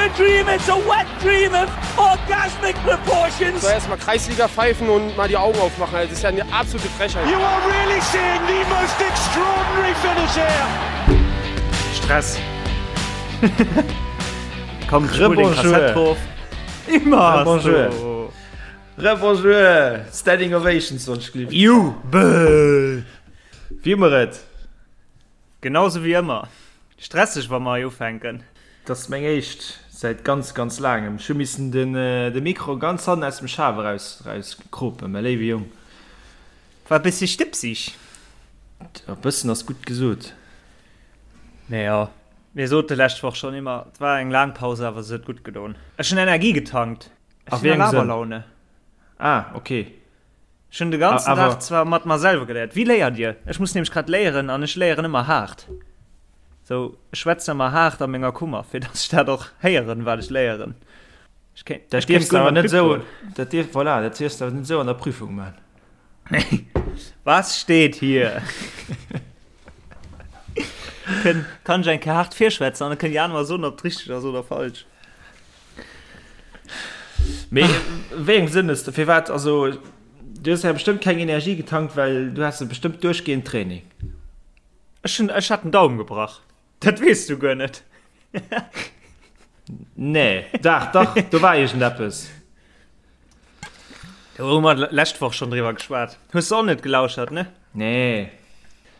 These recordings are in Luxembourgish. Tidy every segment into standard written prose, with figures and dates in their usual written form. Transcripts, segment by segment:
a dream, it's a wet dream of orgasmic proportions. So erstmal Kreisliga pfeifen und mal die Augen aufmachen. Das ist ja eine absolute Frechheit. You are really seeing the most extraordinary finish here. Stress. Komm, spul den Kassett drauf. Immer. Bonjour. Rebonjour. Standing Ovations sonst glück. Jubel. Wie immer et. Genauso wéi ëmmer. Stresseg wa mer hei ufänken. Et ass meng éischt säit ganz ganz laangem. Ech hu missen den de Mikro ganz hannen aus dem Schaf eraus eraus kropen, mä léiwe Jong. War e bëssi stëbsig. E bëssen ass gutt gesot. Mee jo, mir sote lescht Woch schonn ëmmer, et war eng laang Paus, awer se huet gutt gedoen. Ech hunn Energie getankt. Ech sinn a Laberlaune. Ah, okay. Ech hunn de ganzen Dag zwar mat mer selwer geléiert. Wéi léiert Dir? Ech muss nämlech grad léieren an ech léieren ëmmer haart. Sou, ech schwätzen ëmmer haart a menger Kummer, fir datt ech dat och héieren, wat ech léieren. Ech kéint, dat dierfs de awer net esou, dat dierf, voilà, dat dierfs de awer net esou an der Prüfung man. Nee. Was steht hier? Kënn, kann ech eng Kéier haart virschwätzen an da kënnt déi aner mer soen, ob et richteg ass oder falsch. Mee wéi engem Sënn hues de, firwat, also du hues ja bestëmmt keng Energie getankt, well du has bestëmmt duerchgehend Training. Ech hunn, ech hat den Daumen gebrach. Dat weess du guer net. Nee, dach, dach, do war iergendeppes. Do hu mer lescht Woch schonn driwwer geschwat. Hues de och net gelauschert, ne? Nee.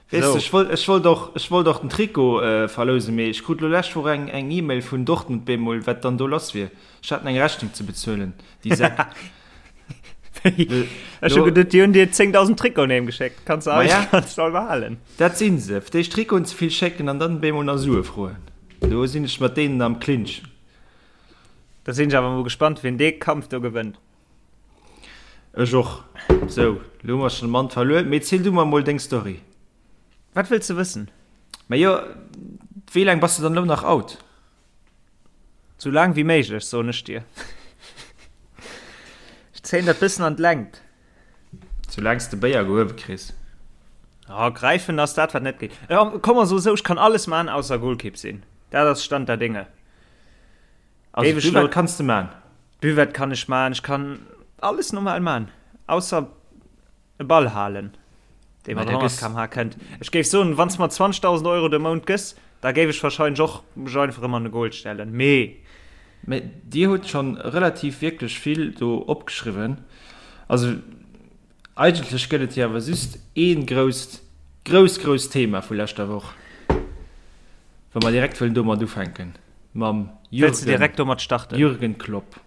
Weess de, ech wollt, ech wollt och, ech wollt och den Trikot verlousen, mee ech krut lo lescht Woch eng, eng E-Mail vun Dortmund bemol, wat dann do lass wier. Ech haten eng Rechnung ze bezuelen, déi Säck. Ech hu geduet, déi hunn dir 10.000 Trikoten heem geschéckt. Kanns de eis, kanns de all behalen. Dat sinn se, fir d'éischt Trikoten ze vill schécken an dann bemol nach Sue froen. Do sinn ech mat deenen am Clinch. Da sinn ech awer mol gespannt, wien dee Kampf do gewënnt. Ech och. Sou, lo hu mer schon de Mann verluer. Mee ziel du mer mol deng Story. Wat wëlls de wëssen? Majo, wéi laang bass de dann elo nach out? Sou laang wéi méiglech, soen ech dir. Ech zéien dat bëssen an d'Längt. Soulaang s de Béier gehuewe kriss. Oh, gräifen ass dat, wat net geet. Komm mer soe sou, ech kann alles man, ausser Golkipp sinn. Dat ass Stand der Dinge. Also Géif ech lo- Buvette kanns de man. Buvette kann ech man, ech kann alles normal man, ausser e Ball halen, dee mat 100 km/h kënnt. Ech géif soen, wann s mer 20.000 Euro de Mount gëss, da géif ech wahrscheinlech och mech einfach erëm an de Goal stellen, mee. Mee Dir hutt schonn relativ wierklech vill do opgeschriwwen. Also Eigentlech gëtt et jo awer just ee grousst, grousst, grousst Thema vu leschter Woch, wa mer direkt wëllen domat ufänken, mam Wëlls de direkt domat starten? Jürgen Klopp.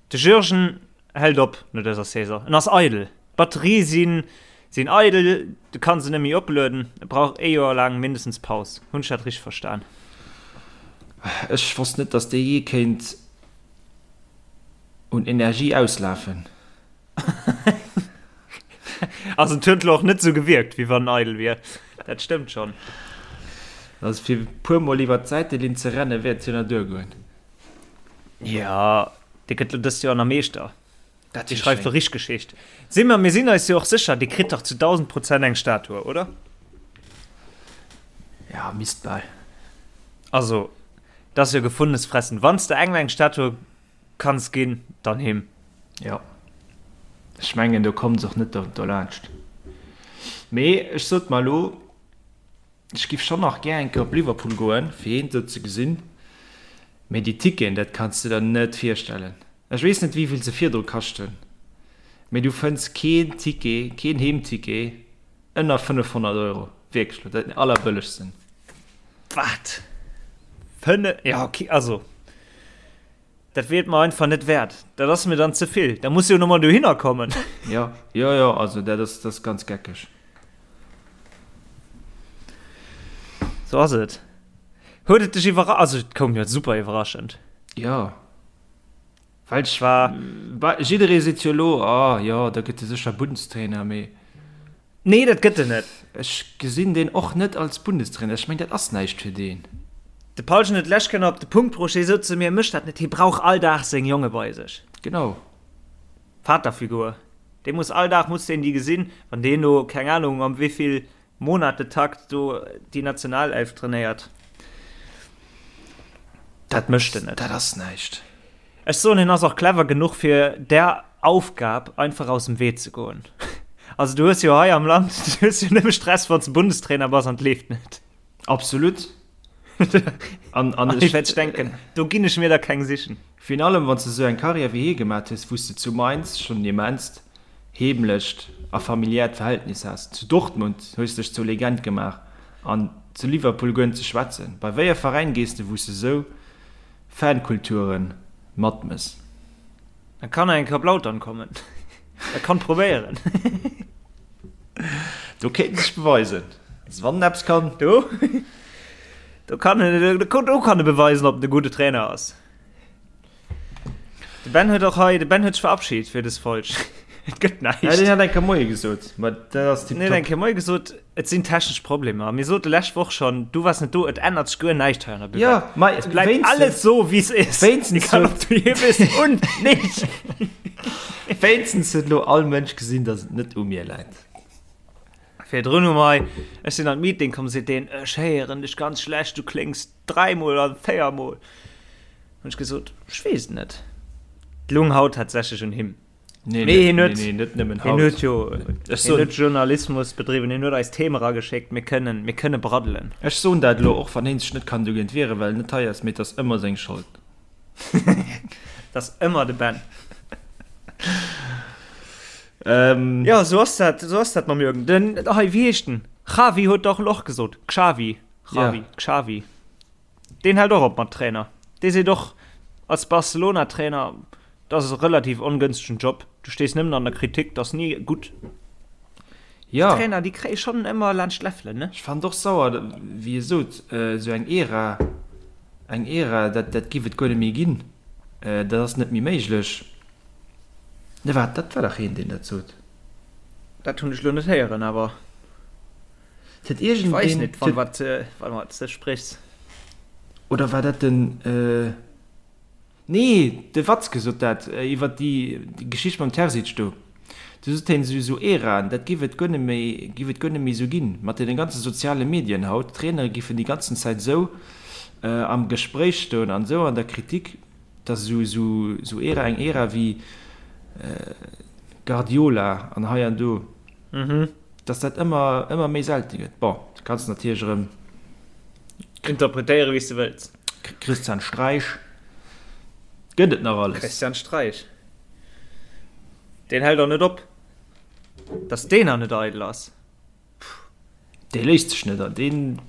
De Jürgen hält op no dëser Saison. En ass eidel. D'Batterie sinn, sinn eidel, de kann se net méi oplueden. E brauch ee Joer laang mindestens Paus. Hunn ech dat richteg verstan? Ech wosst net, datt dee jee kéint un Energie auslafen. Also et huet lo och net sou gewierkt, wéi wann en eidel wier. Dat stëmmt schonn. Also fir e puer mol iwwer d'Säitelinn ze renne wäert jo nach duergoen. Jo, dee gëtt lo dëst Joer nach Meeschter. Dat Dee wier schreift schéin. do richteg Geschicht. Si mer, mir sinn eis jo och sécher, dee kritt dach zu 1000% eng Statue, oder? Ja, misst bal. Also, dat ass jo gefundenes Fressen. Wann s de engem eng Statue Kanns ginn, dann him. Jo, ech mengen do kommt se och net dolaanscht. Mee ech sot mer elo, ech giff schonn nach gär eng Kéier op Liverpool goen, fir hien do ze gesinn. Mee déi Ticketen, dat kanns de der net virstellen. Ech weess net wéivill se virdru kaschten, mee du fënns keen Ticket, keen Heemticket ënner 500 Euro. Wierklech elo, dat den allerbëllegsten. Wat? Fënne, ja okay, also. Dat wier et mer einfach net wäert. Dat ass mir dann ze vill. Da muss jo nochmol dohinner kommen. Jo, jo, jo, also dat ass, dat ass ganz geckeg. Sou ass et. Huet et dech iwwerra-, also et koum jo super iwwerraschend. Jo, well ech war, jidderee seet jo elo, ah jo, da gëtt e sécher Bundestrainer, mee. Nee, dat gëtt en net. Ech gesinn deen och net als Bundestrainer. Ech meng, dat ass näischt fir deen. De Paulchen huet d'lescht Kéier nach op de Punkt bruecht, hie sot zu mir, Mécht dat net, hie brauch all Dag seng Jonge bei sech. Genau. Vaterfigur. Dee muss all Dag muss deen déi gesinn, wann deen do, keng Ahnung, am wéivill Monatetakt do déi Nationalelf trainéiert. Dat mécht en net. Dat ass näischt. Ech soen, hien ass och clever genuch fir där Aufgab einfach aus dem Wee ze goen. Also du hues jo hei am Land, du hues jo nëmme Stress wann s de Bundestrainer bass an et leeft net. Absolut. An, an ech wäert denken, do ginn ech mir der keng sichen. Virun allem wann s de esou eng Karriär wéi hie gemat hues, wou s de zu Mainz schonn en immenst heemlecht a familiäert Verhältnis has, zu Dortmund hues dech zur Legend gemaach an zu Liverpool guer net ze schwätzen. Bei wéi e Veräin gees de wou s de esou Fankulture matmëss? E kann eng Kéier op Lautern kommen. E kann probéieren. Do kéint en sech beweisen. Also wann en eppes kann. Do, do kann en, do kann e beweisen, ob en e gudde Trainer ass. De Ben huet och hei, de Ben huet sech verabschiedet fir dës Folg. Et gëtt näischt. Ja, deen hat eng Kéier Moie gesot, ma dat ass tiptop. En huet eng Kéier Moie gesot, et sinn technesch Problemer. Mir sote lescht Woch schonn, du waars net do, et ännert sech guer näischt hei an der Buvette. Ja, ma Et bleift alles sou, wéi es is. Wéinstens Egal, ob du hier bist und nicht. Wéinstens huet elo all Mënsch gesinn, datt et net u mir läit. Virdrun hu mer hei, ech sinn an d'Meeting komm, seet deen, ech héieren dech ganz schlecht, du kléngs dräimol an véiermol. Hunn ech gesot, ech weess et net. Et lung haut tatsächlech un him. Nee, Mee hien huet, nee, net nëmmen haut. Hien huet jo ech soen, huet Journalismus bedriwwen, hien huet eis Theme erageschéckt, mir kënnen, mir kënne braddelen. Ech soen dat elo, och wann hien sech net kann dogéint wieren, well en net hei ass, mee et ass ëmmer seng Schold. Et ass ëmmer de Ben. Ähm, ja, sou ass dat, sou ass dat mam Jürgen. Den, hei, wéi heescht den? Xavi huet dach elo och gesot. Xavi. Xavi, ja. Xavi. Deen hält och op mat Trainer. Dee seet och, als Barcelona-Trainer, dat ass e relativ ongënstegen Job, du stees nëmmen an der Kritik, dat ass ni gutt. Jo. Déi Trainer, déi kréie schonn ëmmer laanscht d'Läffelen, ne? Ech fannen et och sauer, wéi e sot, esou eng Ära, eng Ära, dat, dat giff et guer net méi ginn, dat ass net méi méiglech. Ne wat, dat war dach een, deen dat sot. Dat hunn ech elo net héieren, awer. Et huet iergendeen. Ech weess net, van wat, van wat s de sprichs. Oder war dat den, nee, de Watzke sot dat iwwer déi Geschicht mam Terzic do. Du sot hien, esou esou Äraen, dat giff et guer net méi, giff et guer net méi esou ginn, mat deene ganze soziale Medien haut. D'Trainere giffen déi ganzen Zäit esou am Gespréich stoen an esou an der Kritik, dass esou esou esou Ära, eng Ära wéi Guardiola an hei an do. Dass dat ëmmer, ëmmer méi selte gëtt. Bon, du kanns natierlech erëm. Interpretéiere wéi s de wëlls. Christian Streich gëtt et nach alles. Christian Streich, deen hält och net op. Dass deen nach net eidel ass, pff. Dee léisst sech net an, deen.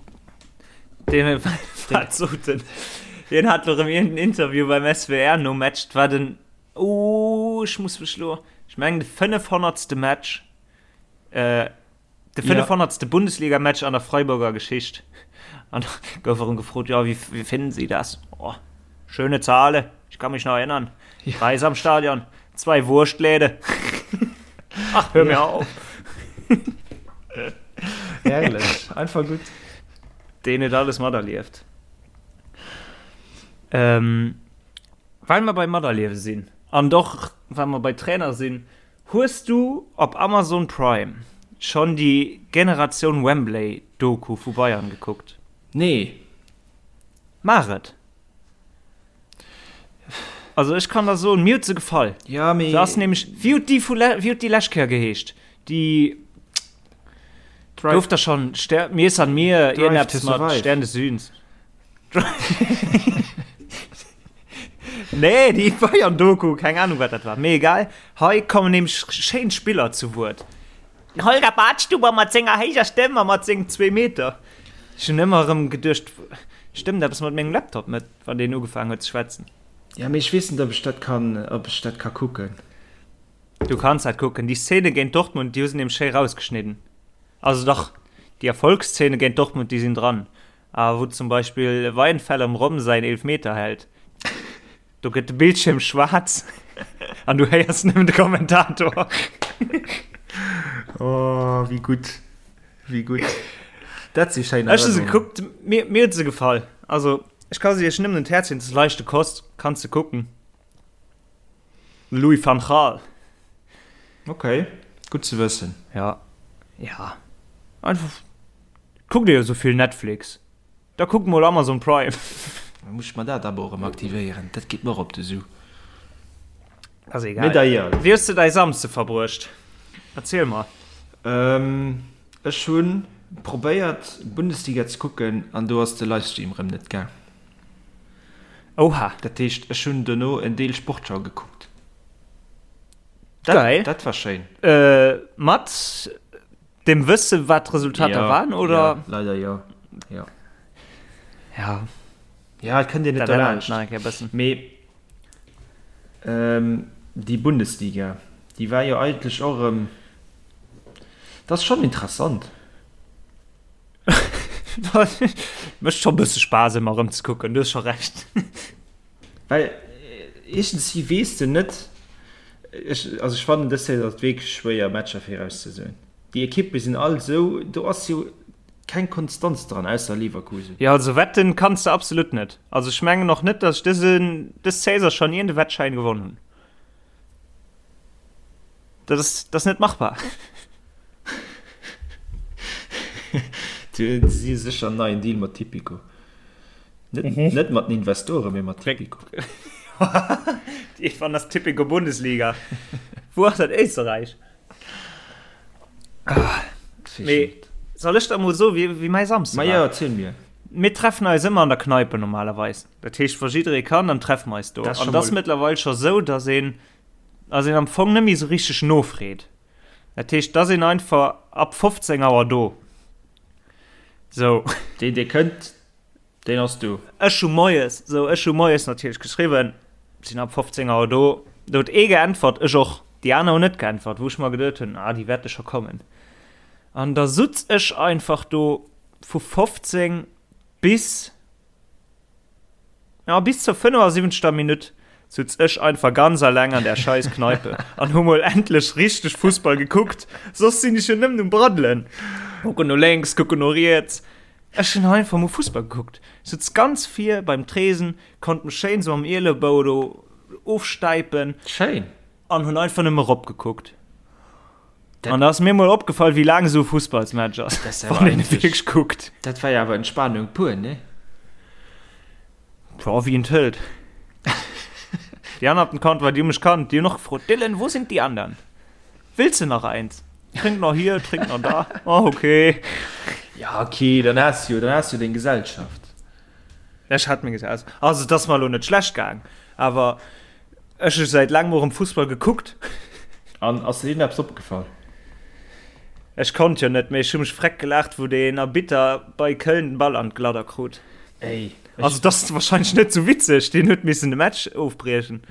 Deen, wat sot en? Deen hat elo erëm iergendeen Interview beim SWR nom Match, 't war den, oh, ech muss mech elo, ech mengen de 500. Match. Äh, de 500. Ja. Bundesliga-Match an der Freiburger Geschicht. An gouf erëm gefrot, ja, wie, wie finden Sie das? Oh, schöne Zahle, ich kann mich noch erinnern. Ja. Preis am Stadion, zwei Wurstläde. Ach, hör ja. mir auf. Herrlich, einfach gut. Den huet alles materlieft. Ähm, well mer bei materliewe sinn an doch well mer bei Trainer sinn, Hues du op Amazon Prime schonn déi Generatioun Wembley Doku vu Bayern gekuckt? Nee. Maach et! Also ech kann der soen, mir huet se gefall. Ja, mee. Se ass nämlech, wéi huet déi vu wéi huet déi lescht Kéier geheescht? Déi gouf der schonn Ster Mir san mir, iergendeppes mat Stern des Südens. Nee, déi Bayern-Doku, keng Ahnung, wat dat war. Mee egal, hei kommen nämlech schéin Spiller zu Wuert. Den Holger Badstuber mat senger héijer Stëmm a mat sengem zwee Meter. Ech hunn ëmmer erëm geduecht, stëmmt eppes mat mengem Laptop net, wann deen ugefaangen huet ze schwätzen. Ja, mee ech weess net, ob ech dat kann, ob ech dat ka kucken. Du kanns dat kucken. Déi Szene géint Dortmund, déi hu se nämlech schéi rausgeschnidden. Also dach, déi Erfolgsszene géint Dortmund, déi sinn dran. A wou zum Beispill Weihenfeller dem Rom säin Eelfmeter hält, do gëtt de Bildschierm schwaarz an du héiers nëmmen de Kommentator. Oh, wéi gutt, wéi gutt. Dat si schéin Ech hu se gekuckt, mir, mir huet se gefall. Also, ech ka se iech nëmmen un d'Häerz leeën, et ass leichte Kost, kanns de kucken. Louis van Gaal. Ok, gutt ze wëssen. Ja, ja. Einfach, kuckt Dir jo esou vill Netflix, da kuckt mol Amazon Prime. Da muss ech mer dat Abo erëm aktivéieren. Dat geet mer och op de Su. Ass egal. Mee d'ailleurs. Wéi hues de däi Samsde verbruecht? Erziel mer. Ech hu probéiert Bundesliga ze kucken an do ass de Livestream rëm net gaang. Oha. Dat heescht ech hunn dono en Deel Sportschau gekuckt. Dat, Geil. Dat war schéin. Mat dem Wësse wat d'Resultater ja, waren oder? Ja, leider jo. Ja. Ja. Ja, et kënnt een net derlaanscht. Mee ähm, déi Bundesliga, déi war jo eigentlech och erëm, dat ass schonn interessant. Mécht scho bësse Spaass ëmmer erëm ze kucken, du hues scho Recht. Well iergendwéi weess de net, ech, also ech fannen dës Saison ass et wierklech schwéier Matcher virauszesoen. Déi Ekippe sinn all esou, do ass jo keng Konstanz dran, ausser Leverkusen. Jo, also wetten kanns de absolut net. Also ech mengen och net, datt ech dësen, dës Saison schonn iergend e Wettschäin gewonn hunn. Dat ass, dat ass net machbar. Si hu sécher en neien Deal mat Tipico. Net, mhm. net mat den Investoren, mee mat Tipico. Wann das Tipico Bundesliga. Wo ass dat Éisterreich? Ah, mee, soll ech da mol so wéi, wéi mäi Samsde Ma ja, erziel mir. Mir treffen eis ëmmer an der Kneipe normalerweis. Dat heescht, wa jidderee kann, dann treffen mer eis do. An das mëttlerweil scho sou, dass een, dass een am Fong net méi sou richteg nofreet. Dat heescht, dass een einfach ab 15 Auer do. Sou. Deen, dee kënnt, deen ass do. Ech hu moies, sou, ech hu moies natierlech geschriwwen, sinn ab 15 Auer do. Do huet ee geäntwert, ech och. Déi aner hunn net geäntwert, wou ech mer geduet hunn, ah, déi wäerte scho kommen. An da sutz ech einfach do vu 15 bis. Ja, bis zur 75. Minutt sutz ech einfach ganz alleng an der scheiß Kneipe an hu mol endlech richteg Fussball gekuckt. Soss sinn ech jo nëmmen um Braddelen. Kucken no lénks, kucken no riets. Ech hunn einfach mol Fussball gekuckt. Sutz ganz vir beim Tresen, konnt mech schéin sou am Ielebou do ofstäipen. Schéin. An hunn einfach nëmme ropgekuckt. An da ass mir mol opgefall, wéi laang esou e Fussballsmatch ass, wann een e wierklech kuckt. Dat war jo awer Entspanung pur, ne? Jo, wéi een et hëlt. Déi aner op dem Comptoir, déi hu mech kannt, déi hunn och gefrot, Dylan, wo sind die anderen? Willst du nach eins? Trink nach hier, trink nach da. Oh, okay. Ja, okay, dann has du jo, dann has du jo deng Gesellschaft. Ech hat meng Gesellschaft. Also, et ass mer elo net schlecht gaang, awer Ech hu säit laangem erëm Fussball gekuckt. An ass dir eppes opgefall? Ech konnt jo net, mee ech hu mech freck gelaacht, wou deen Arbitter bei Köln den Ball an d'Gladder krut. Ey, ech. Also, dat ass wahrscheinlech net sou witzeg, deen huet missen de Match ofbriechen,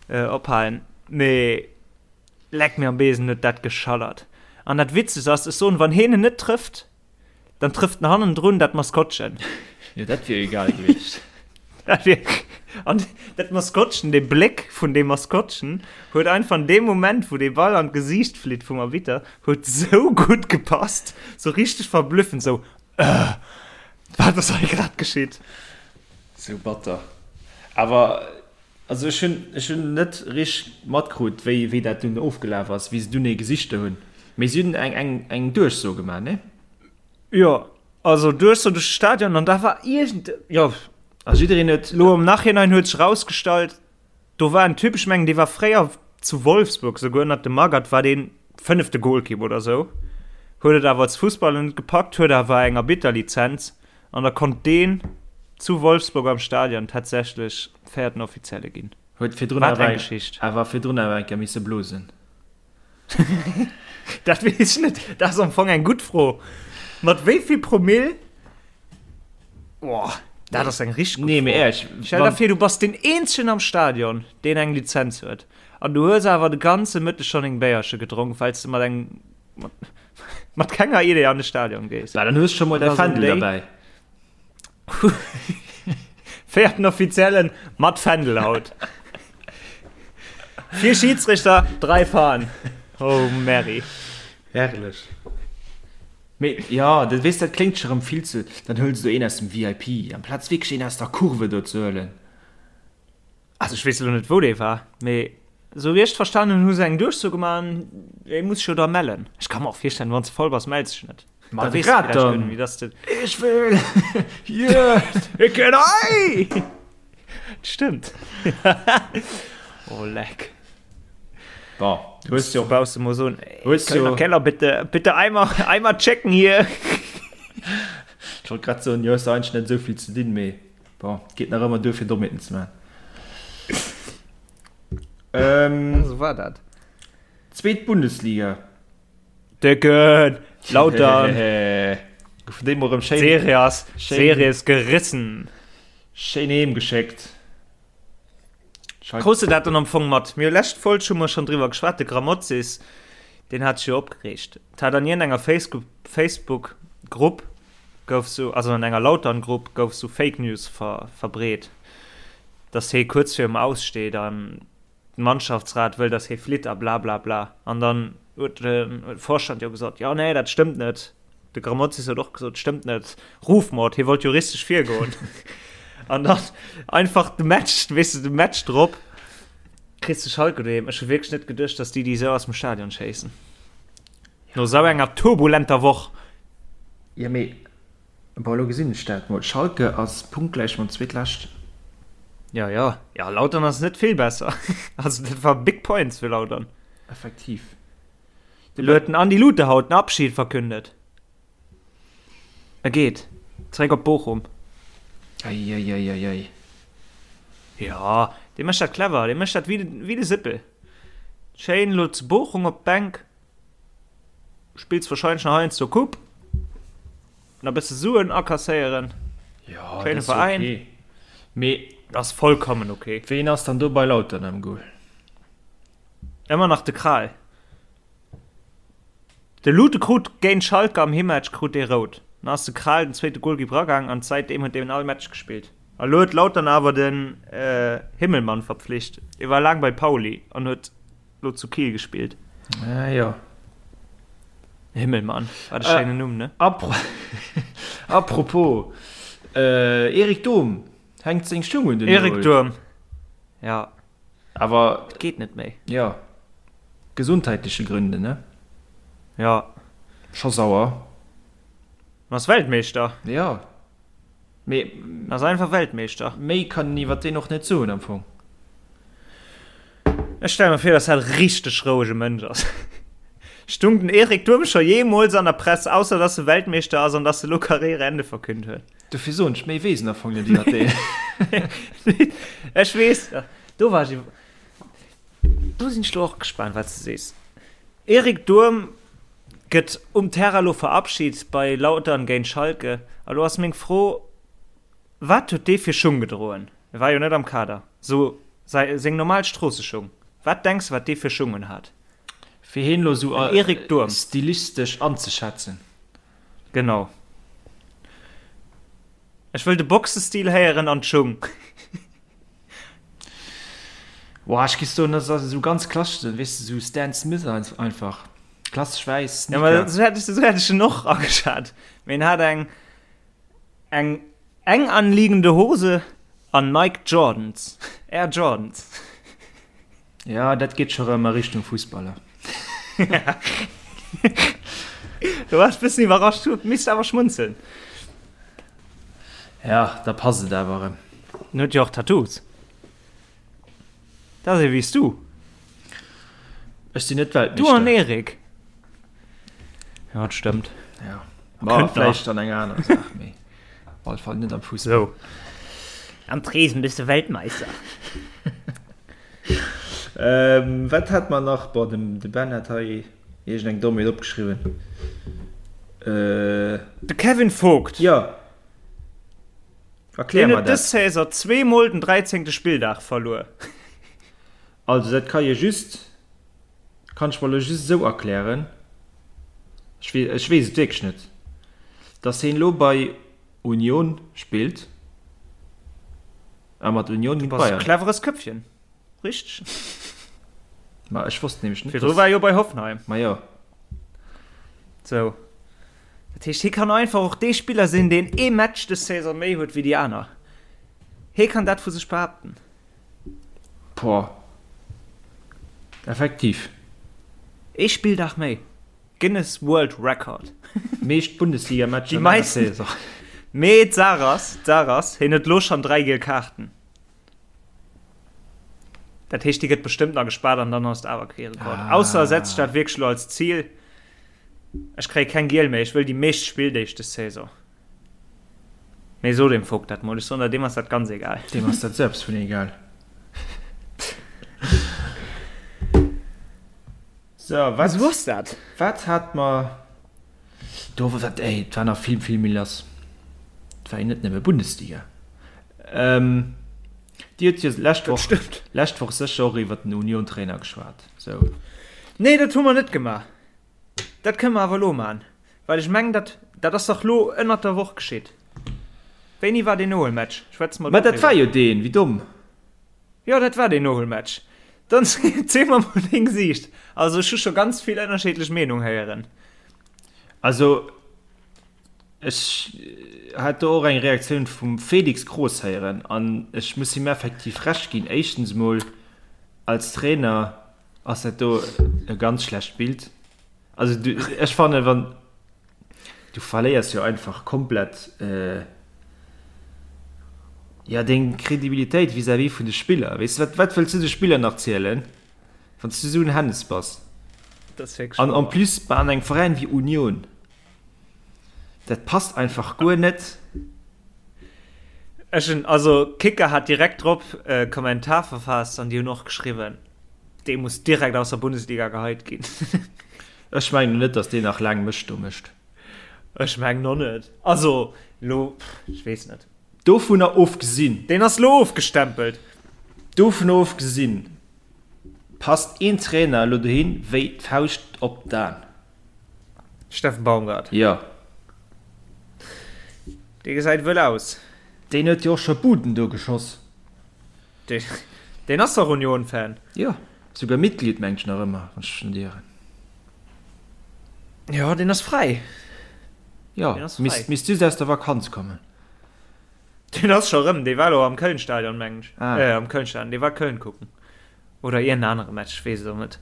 ophalen, mee leck mir am Besen huet dat geschallert. An dat Witzegst ass, ech soen, wann heen en net trëfft, Dann trëfft en hannendrun dat Maskottchen. Jo, dat wier jo egal gewiescht. Dat wier. An dat Maskottchen, dee Bléck vun deem Maskottchen huet einfach an deem Moment, wou dee Ball an d'Gesiicht flitt vum Arbitter, huet sou gutt gepasst, sou richteg verblüffend, sou, Äh, wat ass hei grad geschitt? Sou batter. Awer also ech hunn ech hunn net richteg matkrut, wéi wéi dat dunn ofgelaf ass, wéi se dunn ee gesichte hunn. Mee si hunn eng eng eng Duerchso gemaach, ne? Jo, also Duerchso duerch de Stadion an da war iergend, jo. A jiddereen huet. Lo am Nachhinein huet sech erausgestallt, do war en Typ, ech mengen dee war fréier zu Wolfsburg, souguer ënnert dem Magath war deen fënnefte Golkipp oder sou, huet et awer als Fussballer net gepackt, huet awer eng Arbitterlizenz An da konnt deen zu Wolfsburg am Stadion tatsächlech véierten Offizielle ginn. Huet virdrun Wat eng Geschicht. Awer virdrun awer eng Kéier misse blosen. Dat weess ech net. Dat ass am Fong eng gutt Fro. Mat wéi vill Promill? Boah, dat ass eng richteg gutt Fro. Nee, mee éierlech. Stell der vir, du bass deen eenzegen am Stadion, deen eng Lizenz huet. An du hues awer de ganze Mëtteg schonn eng Béierche gedronk, well s de mat engem Mat kenger Idee an de Stadion gees. Bah, dann hues scho mol däi Fändel derbäi. Véierten Offiziellen mat Fändel haut. Vier Schiedsrichter, drei Fahnen. Oh, Mary. Herrlech. Mee ja, dat weess, dat kléngt scho rëm vill ze, dann hëls du een aus dem VIP, amplaz wierklech een aus der Kurve do ze huelen. Also ech weess elo net wou dee war, mee esou wéi ech et verstanen hunn, hu se eng Duerchso gemaach an ee muss sech jo da mellen. Ech ka mer och virstellen, wann s de voll bass, mells dech net. Ma da weess de grad dann. Wéi dass de. Ech wëll! Yeah! Ik ken ei! Stëmmt. Oh leck. Bon, du hues jo. Brauchst du mol soen, Hues jo. Keller, bitte, bitte einmal, einmal checken hier. Ech wollt grad soen, jo hues eigentlech net esou vill ze dinn, mee bon, geet nach ëmmer duer fir Dommheeten ze maachen. Ähm, Sou war dat. Zweet Bundesliga. Décken! Lautern! Goufen déi mol erëm schéin. D'Serie ass, Serie ass gerissen. Schéin heem geschéckt. Krus de dat dann am Fong mat? Mir hu lescht Folg hu mer schonn driwwer geschwat, de Grammozis, deen hat sech jo opgereegt. Et hat an iergendenger Facebook Grupp gouf sou, also an enger Lautern-Grupp gouf sou Fake News ver verbreet, dass hee kuerz virum Aus steet an den Mannschaftsrat wëll, dass hee flitt a blablabla. An dann huet de Vorstand jo gesot, jo nee, dat stëmmt net. De Grammozis huet och gesot, stëmmt net, Rufmord, hie wollt juristesch virgoen. An dann einfach de Match, weess de, de Match drop kriss de Schalke doheem. Ech hu wierklech net geduecht, dass déi déi esou aus dem Stadion schéissen. No esou enger turbulenter Woch. Jo mee bon, elo gesinn ech dat mol, Schalke ass punktgläich mam Zweetleschten. Jo jo, jo Lautern ass net vill besser. Also dat war big points fir Lautern. Effektiv. Elo huet den Andi Luterhaut den Abschied verkündet. E geet zeréck op Bochum. Eieieiei. Jo, dee mécht dat clever, dee mécht dat wéi de Sippel. Schéin elo zu Bochum op d'Bänk, spills wahrscheinlech nach heiansdo Coupe, nach e bësse Suen akasséieren. Jo, dat ass ok. Mee dat ass vollkommen ok. Ween ass dann do bei Lautern am Goal? Ëmmer nach de Kral. De Lute krut géint Schalke am Himmatch krut dee rout. Dann ass de Kral den zweete Golkipp ragaang an säitdeem huet deen all Match gespillt. A lo huet Lautern awer den Himmelmann verpflicht. Dee war laang bei Pauli an huet lo zu Kiel gespillt. Ah jo. Himmelmann, wat e schéinen Numm, ne? Apropos, Erik Durm hänkt seng Schung un den Nol. Erik Durm, ja. Awer. Et geet net méi. Jo. Gesundheitleche Gründe, ne? Jo. Scho sauer. En ass Weltmeeschter. Jo. Mee. En ass einfach Weltmeeschter. Méi kann een iwwer deen och net soen am Fong. Ech stelle mer vir, dass dat e richteg rouege Mënsch ass. Stung den Erik Durm scho jeemools an der Press, ausser dass e Weltmeeschter ass an dass e lo Karriereende verkünnt huet? Dofir soen ech, méi weess en am Fong net iwwer deen. Ech weess, do war ech iwwer, do sinn ech lo och gespaant, wat s de sees. Erik Durm gëtt um Terrain lo verabschit bei Lautern géint Schalke. A lo ass meng Fro, Wat huet dee fir Schung gedroen? E war jo net am Kader. Sou säi, seng normal Stroosseschung. Wat denks de, wat dee fir Schung un hat? Fir heen lo sou stilistesch anzeschätzen. Genau. Ech wëll de Boxestil héieren an d'Schung. Boah, ech giff soen, dat ass esou ganz klassesch, weess de, sou Stan Smith einfach. Klassesch wäiss Sneaker. Ja, ma sou hätt ech, sou hätt ech en och ageschat. Mee en hat eng, eng eng anliegende Hose an Nike Jordans, Air Jordans. Ja, dat geet scho rëm a Richtung Fussballer. Du waars bëssen iwwerrascht, huet misst awer schmunzeln. Ja, da passt et awer erëm. En huet jo och Tattoos. Dat ass ee wéi s du. Ech sinn net Weltmeeschter. Du an Erik. Ja, dat stëmmt. Ja. Ma vläicht an enger anerer Saach, mee op alle Fall net am Fussball. Sou. Am Tresen bist du Weltmeister. Ähm, wat hat mer nach? Boah, de, de Ben hat hei iergendeng Dommheet opgeschriwwen. Äh. De Kevin Vogt. Ja. Erklär mer dat. Deen huet dës Saison zweemol den dräizéngte Spilldag verluer. Also, dat ka je just, kann ech mer elo just esou erklären, ech weess, ech weess et wierklech net, dass heen elo bei Union spillt a mat Union géint Bayern. Du bass e cleveres Köpfchen, richteg. Ma ech wosst nämlech net, dass. Virdru war e jo bei Hoffenheim. Ma jo. Sou. Dat heescht, hie kann einfach och dee Spiller sinn, deen ee Match dës Saison méi huet wéi déi aner. Hie kann dat vu sech behaapten. Boah. Effektiv. Ee Spilldag méi. Guinness World Record. Meescht Bundesliga-Matcher an enger Saison. Mee d'Saach ass, d'Saach ass, hien huet elo schonn 3 giel Kaarten. Dat heescht, déi gëtt bestëmmt nach gespaart an dann ass et awer kee Rekord. Ah. Ausser e setzt sech dat wierklech elo als Zil, Ech kréie keng giel méi, ech wëll déi meescht Spilldeeg des Saison. Mee so dem Vogt dat mol, ech soen der, deem ass dat ganz egal. Deem ass dat selbst vun egal. So, wat, Esou ass dat. Wat hat mer do, wat, ey, et war nach vill, vill méi lass. Et war jo net nëmme Bundesliga. Ähm, Dir hutt jo lescht Woch, lescht Woch sécher och iwwer den Union-Trainer geschwat. Sou. Nee, dat hu mer net gemaach. Dat kënne mer awer elo maachen, well ech mengen, dat, dat ass dach lo ënnert der Woch geschitt. Wéini war deen Nohuelmatch? Schwätze mer do driwwer. Mä dat war jo deen, wéi domm. Jo, dat war deen Nohuelmatch. Dann ziel mer mol deng Siicht. Also ech hu scho ganz vill ënnerscheedlech Meenung héieren. Also ech hat do och eng Reaktioun vum Felix Kroos héieren an ech muss him effektiv Recht ginn. Éischtens mol als Trainer Ass dat do e ganz schlecht Bild? Also du, ech fannen, wann du verléiers jo einfach komplett äh, ja deng Kredibilitéit vis-à-vis vun de Spiller. Weess du, wat, wat wëlls du de Spiller nach zielen, wann s du esou en Hennes bass? Dat ass wierklech An en wahr. plus bei an engem Veräin wéi Union. Dat passt einfach guer net. Ech hunn, also Kicker hat direkt drop e Kommentar verfaasst an déi hunn och geschriwwen, dee muss direkt aus der Bundesliga geheit ginn. Ech mengen net, datt deen nach laang Mëscht do mécht. Ech mengen och net. Also lo, ech weess net. Dovunner ofgesinn. Deen ass lo ofgestempelt. Dovunner ofgesinn passt een Trainer elo dohin wéi d'Fauscht op d'An. Steffen Baumgart. Jo. Dee gesäit wëll aus. Deen huet jo och scho Buden do geschoss. Deen, deen ass dach Union-Fan. Jo, souguer Mitglied, mengt ech nach ëmmer, wann ech mech net ieren. Jo, deen ass fräi. Jo, misst, misst just aus der Vakanz kommen. Deen ass scho rëm, dee war elo am Köln-Stadion, mengen ech. Ah. Äh, am Köln-Stadion, dee war Köln kucken. Oder iergend anere Match, ech weess et och net.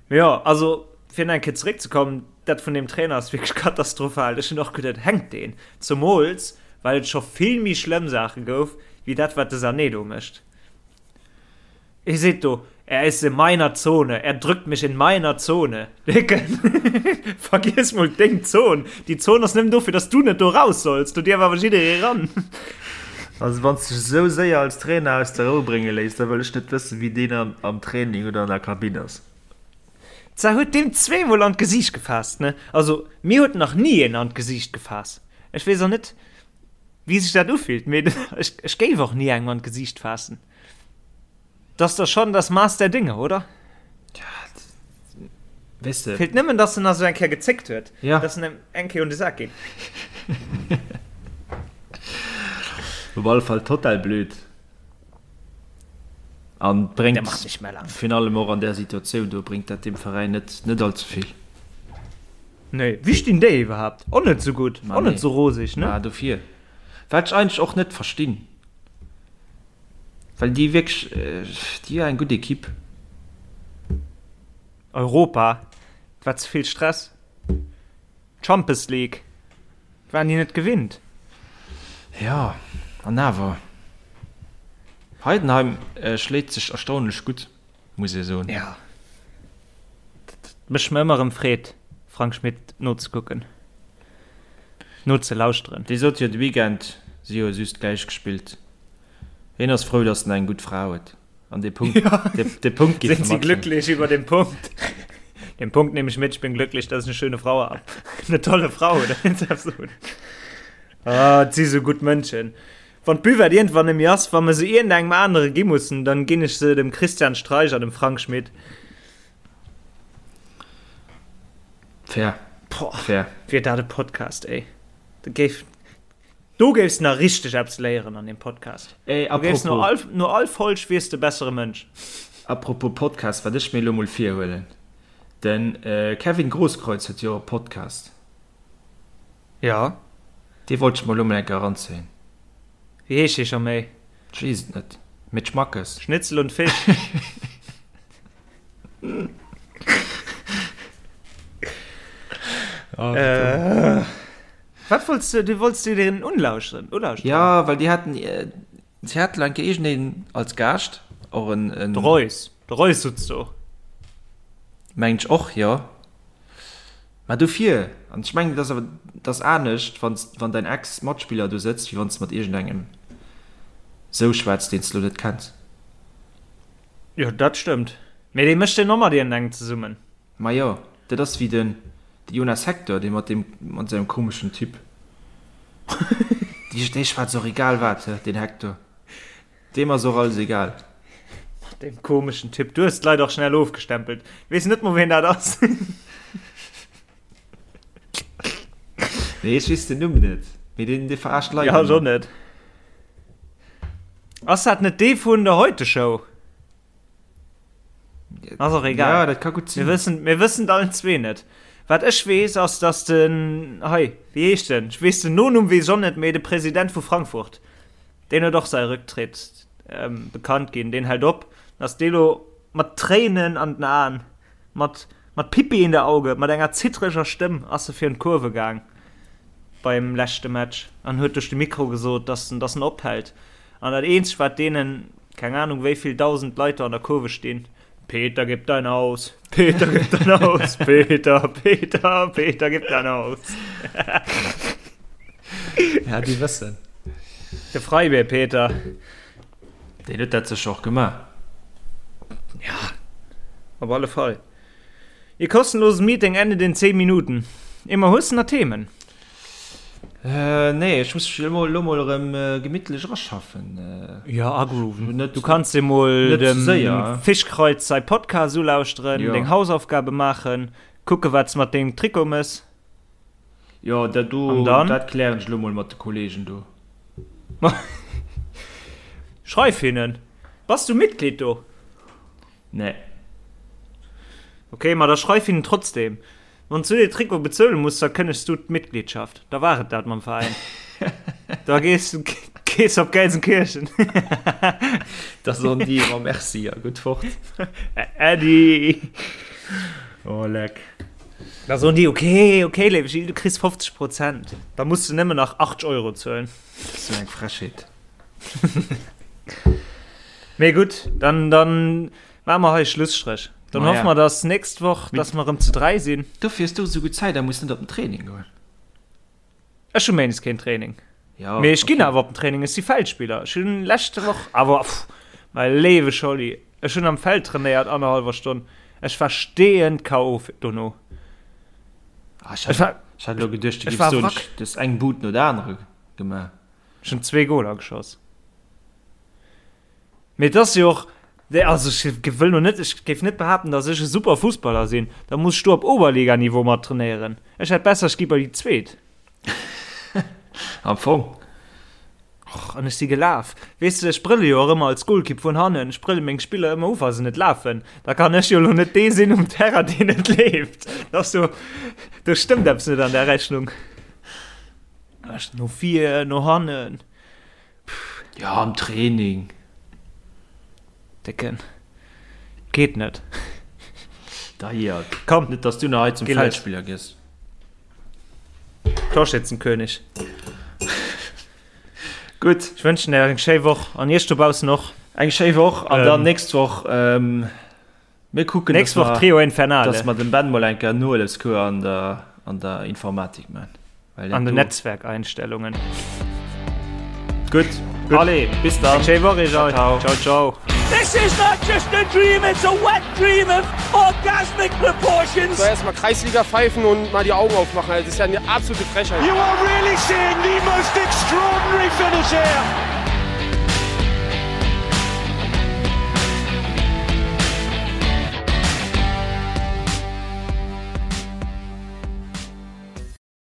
Mee jo, also fir nach eng Kéier zeréckzekommen, dat vun deem Trainer ass wierklech katastrophal. Ech hunn och geduet, hänkt deen? Zemools well et scho vill méi schlëmm Saache gouf, wéi dat wat de Sané do mécht. Hie seet do, Er ist in meiner Zone, er drückt mich in meiner Zone. Décken, vergiess mol deng Zon. Déi Zon ass nëmmen dofir, dass du net do raus solls. Do dierf awer jidderee ran. Also wann s dech esou séier als Trainer aus der Rou brénge léiss, da wëll ech net wëssen, wéi deen am Training oder an der Kabinn ass. Zwar huet deem zweemol an d'Gesiicht gefaasst, ne? Also mir huet nach ni een an d'Gesiicht gefaasst. Ech weess och net, wéi sech dat ufillt, mee ech, ech géif och ni engem an d'Gesiicht faassen. Dat ass da schonn das Maß der Dinge, oder? Ja, weess de. Feelt nëmmen, dass en nach esou eng Kéier gezéckt huet, Ja. dass en em eng Kéier un de Sak geet. Op alle Fall total blöd. An bréngt virun allem och an där Situatioun do bréngt dat dem Veräin net net allze vill. Nee, wéi stinn déi iwwerhaapt? Och net sou gutt, och net sou roseg, ne? Ma dofir. Wat ech eigentlech och net verstinn, well déi wierklech, déi hu eng gutt Equipe. Europa, et war ze vill Stress. D'Champes League waren déi net gewinnt. Jo, an awer, Heidenheim schléit sech erstaunlech gutt, muss ee soen. Jo, dat mécht mer ëmmer erëm Freed, Frank Schmit nozekucken, nozelauschteren. Dee sot jo de Weekend, si hu just gläich gespillt. Hien ass frou, datt en eng gutt Fra huet. An dee Punkt, ja. de, de Punkt Sind Sie glücklich über den Punkt? Den Punkt nehme ich mit, ich bin glücklich, dass ich eine schöne Frau habe. Eine tolle Frau, oder? Ah, et si sou gutt Mënschen. Wann d'Buvette iergendwann net méi ass, wa mer se iergendengem anere gi mussen, dann ginn ech se dem Christian Streich an dem Frank Schmit. Fair. Boah, Fair. Wier dat e Podcast, ey. Da géif, Do géifs nach richteg eppes léieren an deem Podcast. Ey, Du géifs no apropos, all, no all Folg wiers de bessere Mënsch. Apropos Podcast, wat ech mir elo mol virhuelen, den Kevin Grosskreutz huet jo och e Podcast. Jo. Dee wollt ech mer elo mol eng Kéier eranzéien. Wéi heescht dee scho méi? Ech weess et net, mee d'Schmackes. Schnitzel und Fisch. Oh, äh, wat wolltest du, du wolltest du den unlauschteren, ulauschteren? Ja, well déi haten, si haten eng Kéier iergendeen als Gaascht, och en, en. De Reus, de Reus sutz do. Mengen ech och, jo. Mä dofir, an ech mengen, et ass awer, et ass anescht, wann s, wann däin Ex-Matspiller do sëtzt, wéi wann s de mat iergendengem sou schwätz, deen s de lo net kenns. Jo, dat stëmmt. Mee dee mécht jo och mat iergendengem zesummen. Majo, dat ass wéi den de Jonas Hector, dee mat deem, mat sengem komeschen Typ. Dee, dee schwätzt och egal wat, he, deen Hector. Deem ass och alles egal. Mat deem komeschen Typ. Du hues d'Leit och schnell ofgestempelt. Du weess net mol, ween dat ass. Nee, ech weess den Numm net. Mee deen, dee verarscht d'Leit Ja, ech och net. Ass dat net dee vun der Heute-Show? Ass och egal. Ja, dat ka gutt sinn. Mir wëssen, mir wëssen et allen zwee net. Wat ech weess, ass, dass den, hei, wéi heescht en? Ech weess den Nonumm weess ech och net, mee de President vu Frankfurt, deen huet och säi Rücktritt ähm, bekannt ginn. Deen hält op. Ass dee lo mat Tréinen an den Aen, mat, mat Pipi in der Auge, mat enger zittreger Stëmm ass e virun d'Kurve gaang beim leschte Match an huet duerch de Mikro gesot, dass en, dass en ophält. An dat eenzegt wat deenen, keng Ahnung wéivill dausend Leit do an der Kurve stinn, Peter gib dein Haus, Peter gib dein Haus, Peter, Peter, Peter gib dein Haus. Ja, déi wëssen. De Freibier Peter. Deen huet dat sécher och gemaach. Ja, op alle Fall. Ihr kostenloses Meeting endet in 10 Minuten. Immer hues de nach Themen? Nee, ech muss mech elo elo mol erëm gemittlech eraschaffen. Jo, agrooven. Net, du kanns dir mol dem Fischkreuz säi Podcast ulauschteren, deng Hausaufgabe maachen, kucke wat s mat dengem Trikot mëss. Jo, dat do, dat klären ech elo mol mat de Kollegen do. Schreif hinnen. Bass du Mitglied do? Nee. Ok, ma da schreif hinnen trotzdem. Wann s du dee Trikot bezuele muss, da kënnegs du d'Mitgliedschaft. Da war et dat mam Veräin. Da gees gees op Gelsenkirchen. Da soen déi ëmmer Merci a gutt fort. Äddi. Oh leck. Da soen déi, ok, ok, léiwe Gilles, du kriss 50 Prozent. Da muss du nëmmen nach 80 Euro zuelen. Sou eng Frechheet. Mee gutt, dann, dann maache mer hei Schlusstréch. Dann hoffe mer, dass nächst Woch, dass mer erëm zu 3 sinn. Dofir hues du esou gutt Zäit a muss net op den Training goen. Ech hu méindes keen Training. Ja, Mee ech ginn awer op den Training, ech si Feldspiller. Ech hunn leschte Woch awer, pff, mäi léiwe Scholli, ech hunn am Feld trainéiert annerhallwer Stonn. Ech war steeënd KO dono. Ah, ech hat, ech hat elo geduecht, du géifs soen, du hues eng Bud no der anerer gemaach. Ech hunn zwee Goler geschoss. Mee et ass jo och, also ech wëll lo net, ech géif net behaapten, datt ech e super Fussballer sinn. Da muss ech do op Oberliganiveau mat trainéieren. Ech hätt besser, ech gi bei déi Zweet. Am Fong. Och, an ech si gelaf. Weess de, ech brëlle jo och ëmmer als Golkipp vun hannen. Ech brëlle meng Spiller ëmmer u, wa se net lafen. Da kann ech jo lo net dee sinn um Terrain, deen net leeft. Dat ass jo, do stëmmt eppes net an där Rechnung. Ech no vir, no hannen. Pff. Ja, am Training. Décken. Geet net. Deiert. Komm. Net, dass du nach hei zum Feldspiller gëss. Torschützenkönig. Gutt. Ech wënschen der eng schéi Woch an iech dobaussen och. Eng schéi Woch an dann nächst Woch. Mir kucken, Nächst Woch Trio Infernale. Dass mer dem Ben mol eng Kéier Nohëllefscours an der, an der Informatik man. An den Netzwerkeinstellungen. Gutt. Gutt. Allez, bis dann. Eng schéi Woch iech all. Ciao, ciao. ciao. This is not just a dream, it's a wet dream of orgasmic proportions. So, erstmal Kreisliga pfeifen und mal die Augen aufmachen. Das ist ja eine absolute Frechheit. You are really seeing the most extraordinary finish here.